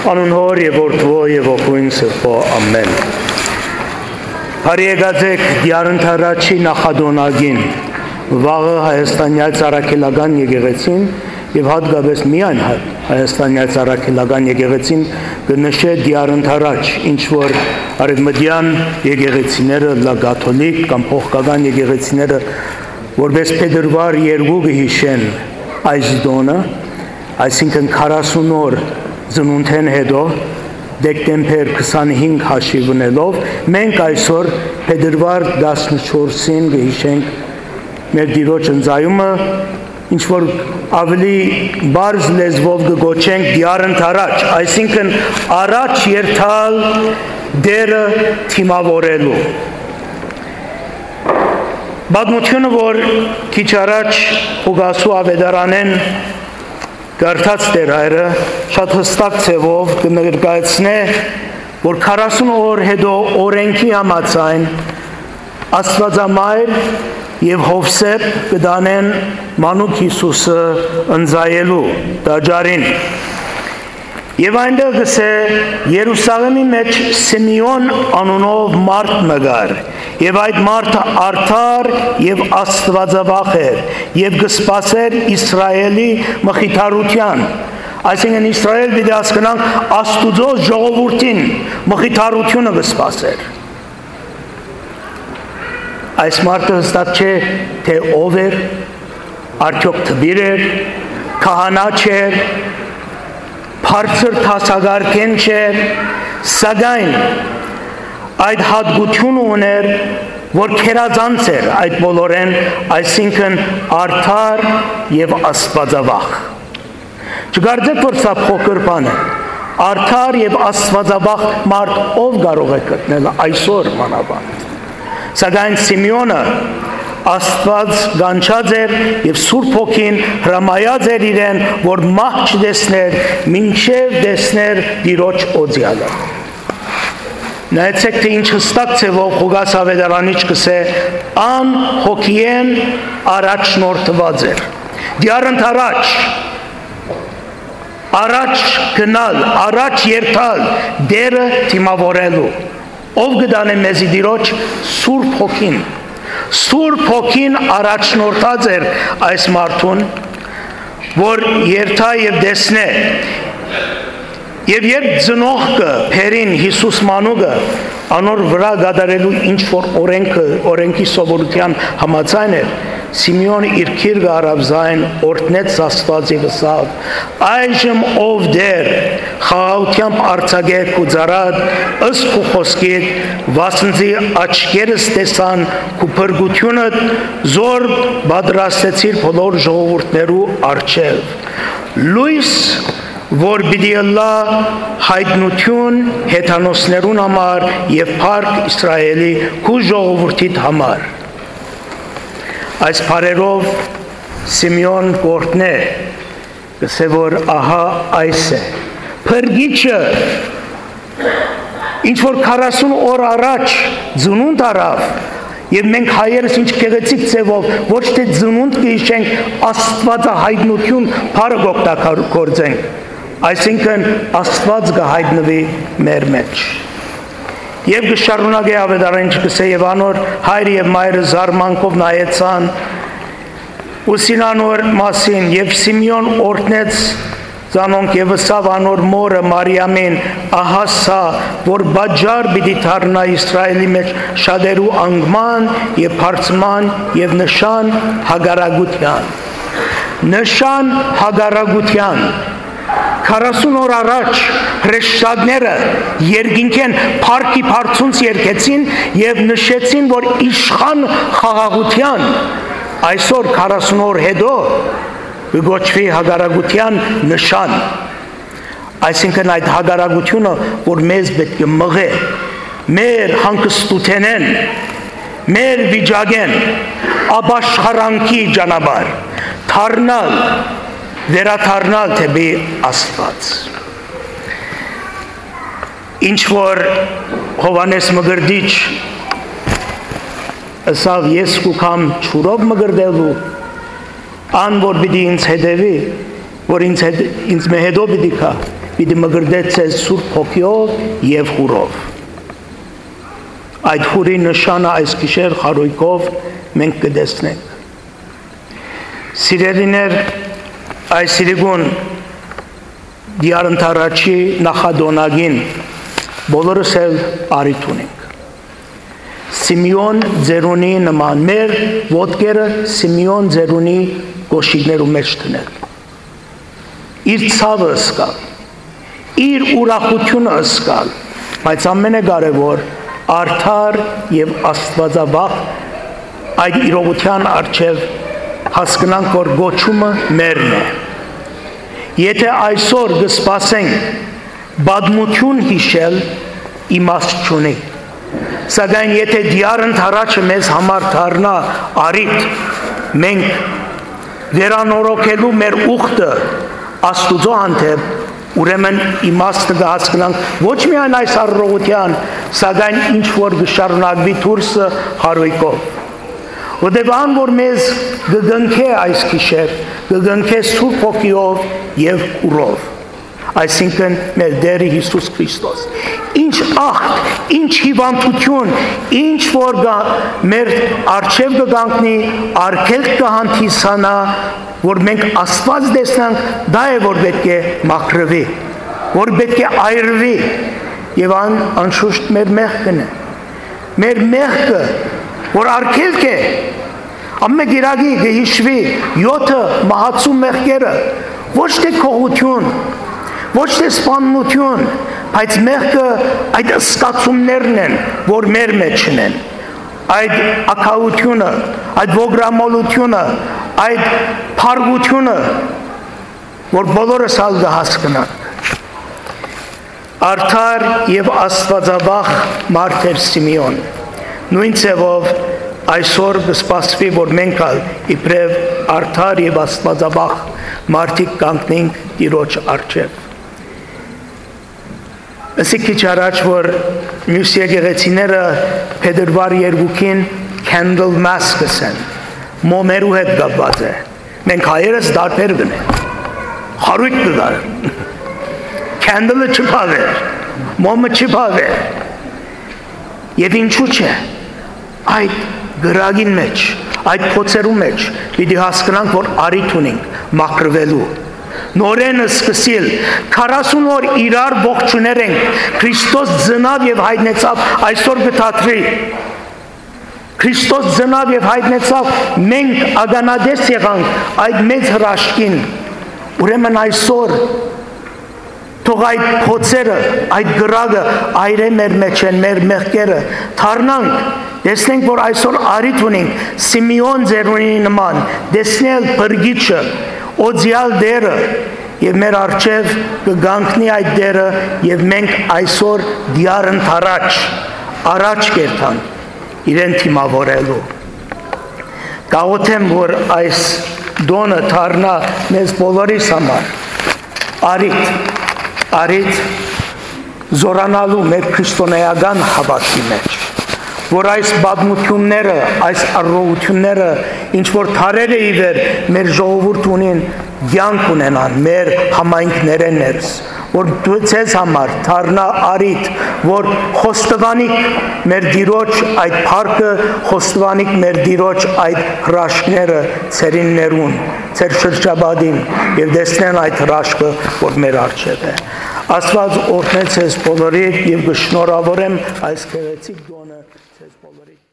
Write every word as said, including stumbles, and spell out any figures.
Անուն Հօր եւ Որդւոյ եւ Հոգւոյն Սրբոյ։ Ամեն։ Բարի եկած էք Տեառն Թարաչի նախատոնակին, վաղը Հայաստանեայ Առաքելական եկեղեցին եւ հատկապէս միայն Հայ-, Հայաստանեայ Առաքելական եկեղեցին կը նշէ Տեառն Թարաչ, ինչ որ արեւմտեան եկեղեցիները, լա կաթոլիկ կամ փոխկական եկեղեցիները, որպէս փետրուար երկու կը յիշեն այս տօնը, այսինքն քառասուն օր ծնունդէն յետոյ, դեկտեմբեր քսանհինգ հաշիւ ընելով, մենք այսօր փետրուար տասնչորսին կը յիշենք մեր Տիրոջ ընծայումը, ինչ որ աւելի պարզ լեզուով կը կոչենք Տեառն Թարաչ, այսինքն առաջ երթալ Տէրը դիմաւորելու։ Պատմութիւնը, որ քիչ առաջ Ղուկասու աւետարանէն կարդաց Տէր Հայրը, շատ յստակ ձեւով կը ներկայացնէ, որ քառասուն օր յետոյ օրէնքի համաձայն Աստուածամայր եւ Յովսէփ կը տանեն մանուկ Յիսուսը ընծայելու տաճարին։ Եւ այնտեղ կ'ըսէ. «Երուսաղէմի մէջ Սիմէոն անունով մարդ մը կար, եւ այդ մարդը արդար եւ աստուածավախ էր, եւ կը սպասէր Իսրայէլի մխիթարութեան»։ Այսինքն՝ Իսրայէլ պիտի հասկնանք, Աստուծոյ ժողովուրդին մխիթարութիւնը կը սպասէր։ Այս մարդը յստակ չէ, թէ ով էր, արդեօք դպիր էր, քահանա չէր, բարձր դասակարգէն չէր, սակայն այդ հատկութիւնը ունէր, որ գերազանց էր այդ բոլորէն, այսինքն՝ արդար եւ աստուածավախ։ Չկարծէք, որ սա փոքր բան է։ Արդար եւ աստուածավախ մարդ ով կարող է գտնել այսօր մանավանդ։ Սակայն Սիմէոնը Աստուած կանչած էր եւ Սուրբ Հոգին հրամայած էր իրեն, որ մահ չտեսներ, մինչեւ տեսներ Տիրոջ օծեալը։ Նայեցէք, թէ ինչ յստակ ձեւով Ղուկաս աւետարանիչ կ'ըսէ. «Ան հոգիէն առաջնորդուած էր»։ Դիառն առաջ, առաջ գնալ, առաջ երթալ, Տէրը դիմաւորելու։ Ով կը տանէ մեզի Տիրոջ? Սուրբ Հոգին։ Սուրբ Հոգին առաջնորդած էր այս մարդուն, որ երթայ եւ տեսնէ։ Եւ երբ ծնողքը բերին Յիսուս մանուկը, անոր վրայ կատարելու ինչ որ օրենքը, օրենքի սովորութեան համաձայն էր, Սիմէոն իր գիրկը առաւ զայն, օրհնեց Աստուած եւ ըսաւ. «Այժմ, ով Տէր, խաղաղութեամբ արձակէ քու ծառադ ըստ քու խօսքիդ, վասնզի աչքերս տեսան քու փրկութիւնդ, զոր պատրաստեցիր բոլոր ժողովուրդներու առջեւ։ Լոյս, որ պիտի ըլլայ յայտնութիւն հեթանոսներուն համար եւ փառք Իսրայէլի քու ժողովուրդիդ համար»։ Այս բառերով Սիմէոն կ'օրհնէ, կ'ըսէ, որ ահա այս է Փրկիչը, ինչ որ քառասուն օր առաջ ծնունդ առաւ, եւ մենք հայերս ինչ գեղեցիկ ձեւով ոչ թէ ծնունդ կը յիշենք, Աստուածահայտնութիւն բառը կ'օգտագործենք, այսինքն՝ Աստուած կը յայտնուի մեր մէջ։ Եւ կը շարունակէ աւետարանիչը, կ'ըսէ. «Եւ անոր հայրը եւ մայրը զարմանքով նայեցան ու ըսին անոր մասին, եւ Սիմէոն օրհնեց զանոնք եւ ըսաւ անոր մօրը Մարիամին. ահա սա, որ պատճառ պիտի դառնայ Իսրայէլի մէջ շատերու անկման եւ բարձման եւ նշան հակառակութեան»։ Նշան հակառակութեան։ Քառասուն օր առաջ հրեշտակները երկինքէն փառքի բարձունց երգեցին եւ նշեցին, որ իշխան խաղաղութեան, այսօր, քառասուն օր յետոյ, կը կոչուի հակառակութեան նշան։ Այսինքն՝ այդ հակառակութիւնը, որ մեզ պէտք է մղէ մեր հանգստութենէն, մեր վիճակէն, ապաշխարանքի ճանապարհ, դառնալ, վերադառնալ դէպի Աստուած։ Ինչ որ Յովհաննէս Մկրտիչ ըսաւ. «Ես կու գամ ջուրով մկրտելու, ան որ պիտի ինձ հետեւի, որ ինձ հետ, ինձ մէ հետո պիտի գայ, պիտի մկրտէ ձեզ Սուրբ Հոգիով եւ հուրով։ Այդ հուրի նշանը այս գիշեր խարոյկով մենք կը տեսնենք։ Սիրելիներ, այս իրիկուն Տեառ Ընդառաջի նախատոնակին բոլորս էլ առիթ ունենք։ Սիմէոն Ծերունի նման մեր ոտքերը Սիմէոն Ծերունի կոշիկներու մէջ դնել, իր ցաւը զգալ, իր ուրախութիւնը զգալ, բայց ամենակարեւոր՝ արդար եւ աստուածավախ այդ իրողութեան առջեւ հասկնանք, որ կոչումը մերն է։ Եթէ այսօր կը սպասենք պատմութիւն յիշել, իմաստ չունի։ Սակայն եթէ Տեառ Ընդառաջը մեզ համար դառնայ առիթ, մենք վերանորոգելու մեր ուխտը Աստուծոյ հանդէպ, ուրեմն իմաստը կը հասկնանք ոչ միայն այս առողջութեան, սակայն ինչ որ կը շարունակուի դուրսը խարոյկով։ Որտեւ ան որ մեզ կը կնքէ այս գիշեր, կը կնքէ Սուրբ Հոգիով եւ հուրով, այսինքն մեր Տէրը Յիսուս Քրիստոս։ Ինչ ախտ, ինչ հիվանդութիւն, ինչ որ կա, մեր առջեւ կը կանգնի, արգելք կը հանդիսանայ, որ մենք Աստուած տեսնանք, դա է որ պէտք է մաքրուի, որ պէտք է այրուի, եւ ան անշուշտ մեր մեղքն է։ Մեր մեղքը, որ արգելք է, ամէն կիրակի կը յիշուի յոթը մահացու մեղքերը, ոչ թէ գողութիւն, ոչ թէ սպաննութիւն, բայց մեղքը այդ զգացումներն են, որ մեր մեջ են, այդ ակաութիւնը, այդ ոգրամոլութիւնը, այդ փառկութիւնը, որ բոլորս ալ կը հասկնանք։ Արդար եւ աստուածավախ մարդ էր Սիմէոն։ Նոյն ձեւով այսօր կը սպասուի, որ մենք ալ իբրեւ արդար եւ աստուածավախ մարդիկ կանգնենք Տիրոջ առջեւ։ Ըսի քիչ առաջ, որ միւս եկեղեցիները փետրուար երկուքին Candle Mass կ'ըսեն, մոմերու հետ կապուած է։ Մենք հայերս տարբեր կ'ընենք։ Խարոյկ կը գար։ Candle-ը չփաւէր, մոմը չփաւէր։ Եւ ինչու՞ չէ, այդ կրակին մէջ, այդ փոցերու մէջ պիտի հասկնանք, որ առիթ ունենք մաքրուելու, նորէն սկսիլ, քառասուն օր իրար ողջուներ ենք, Քրիստոս ծնաւ եւ յայտնեցաւ, այսօր կը դադրի։ Քրիստոս ծնաւ եւ յայտնեցաւ, մենք ականատես եղանք այդ մեծ հրաշքին։ Ուրեմն այսօր թող այդ փոցերը, այդ կրակը այրէ մեր մէջէն, մեր մեղքերը, դառնանք, տեսնենք, որ այսօր առիթ ունենք Սիմէոն Ծերունի նման տեսնել Փրկիչը, օծեալ Տէրը, եւ մեր առջեւ կը կանգնի այդ Տէրը, եւ մենք այսօր Տեառ Ընդառաջ, առաջ կ'երթանք իրեն դիմաւորելու։ Կաղոթեմ, որ այս տօնը դառնայ մեզ բոլորիս համար առիթ, առիթ զօրանալու մեր քրիստոնէական հաւատքի մէջ, որ այս պատմութիւնները, այս առողջութիւնները, ինչ որ դարեր է ի վեր մեր ժողովուրդ ունին, կեանք ունենան մեր համայնքներէն ներս, որ դու ձեզ համար դառնայ առիթ, որ խոստովանիք մեր Տիրոջ այդ փառքը, խոստովանիք մեր Տիրոջ այդ հրաշքները ձերիններուն, ձեր շրջապատին, եւ տեսնեն այդ հրաշքը, որ մեր առջեւ է։ Աստուած օրհնե ձեզ բոլորիդ, եւ կը շնորհավորեմ այս գեղեցիկ տօնը ձեզ բոլորիդ։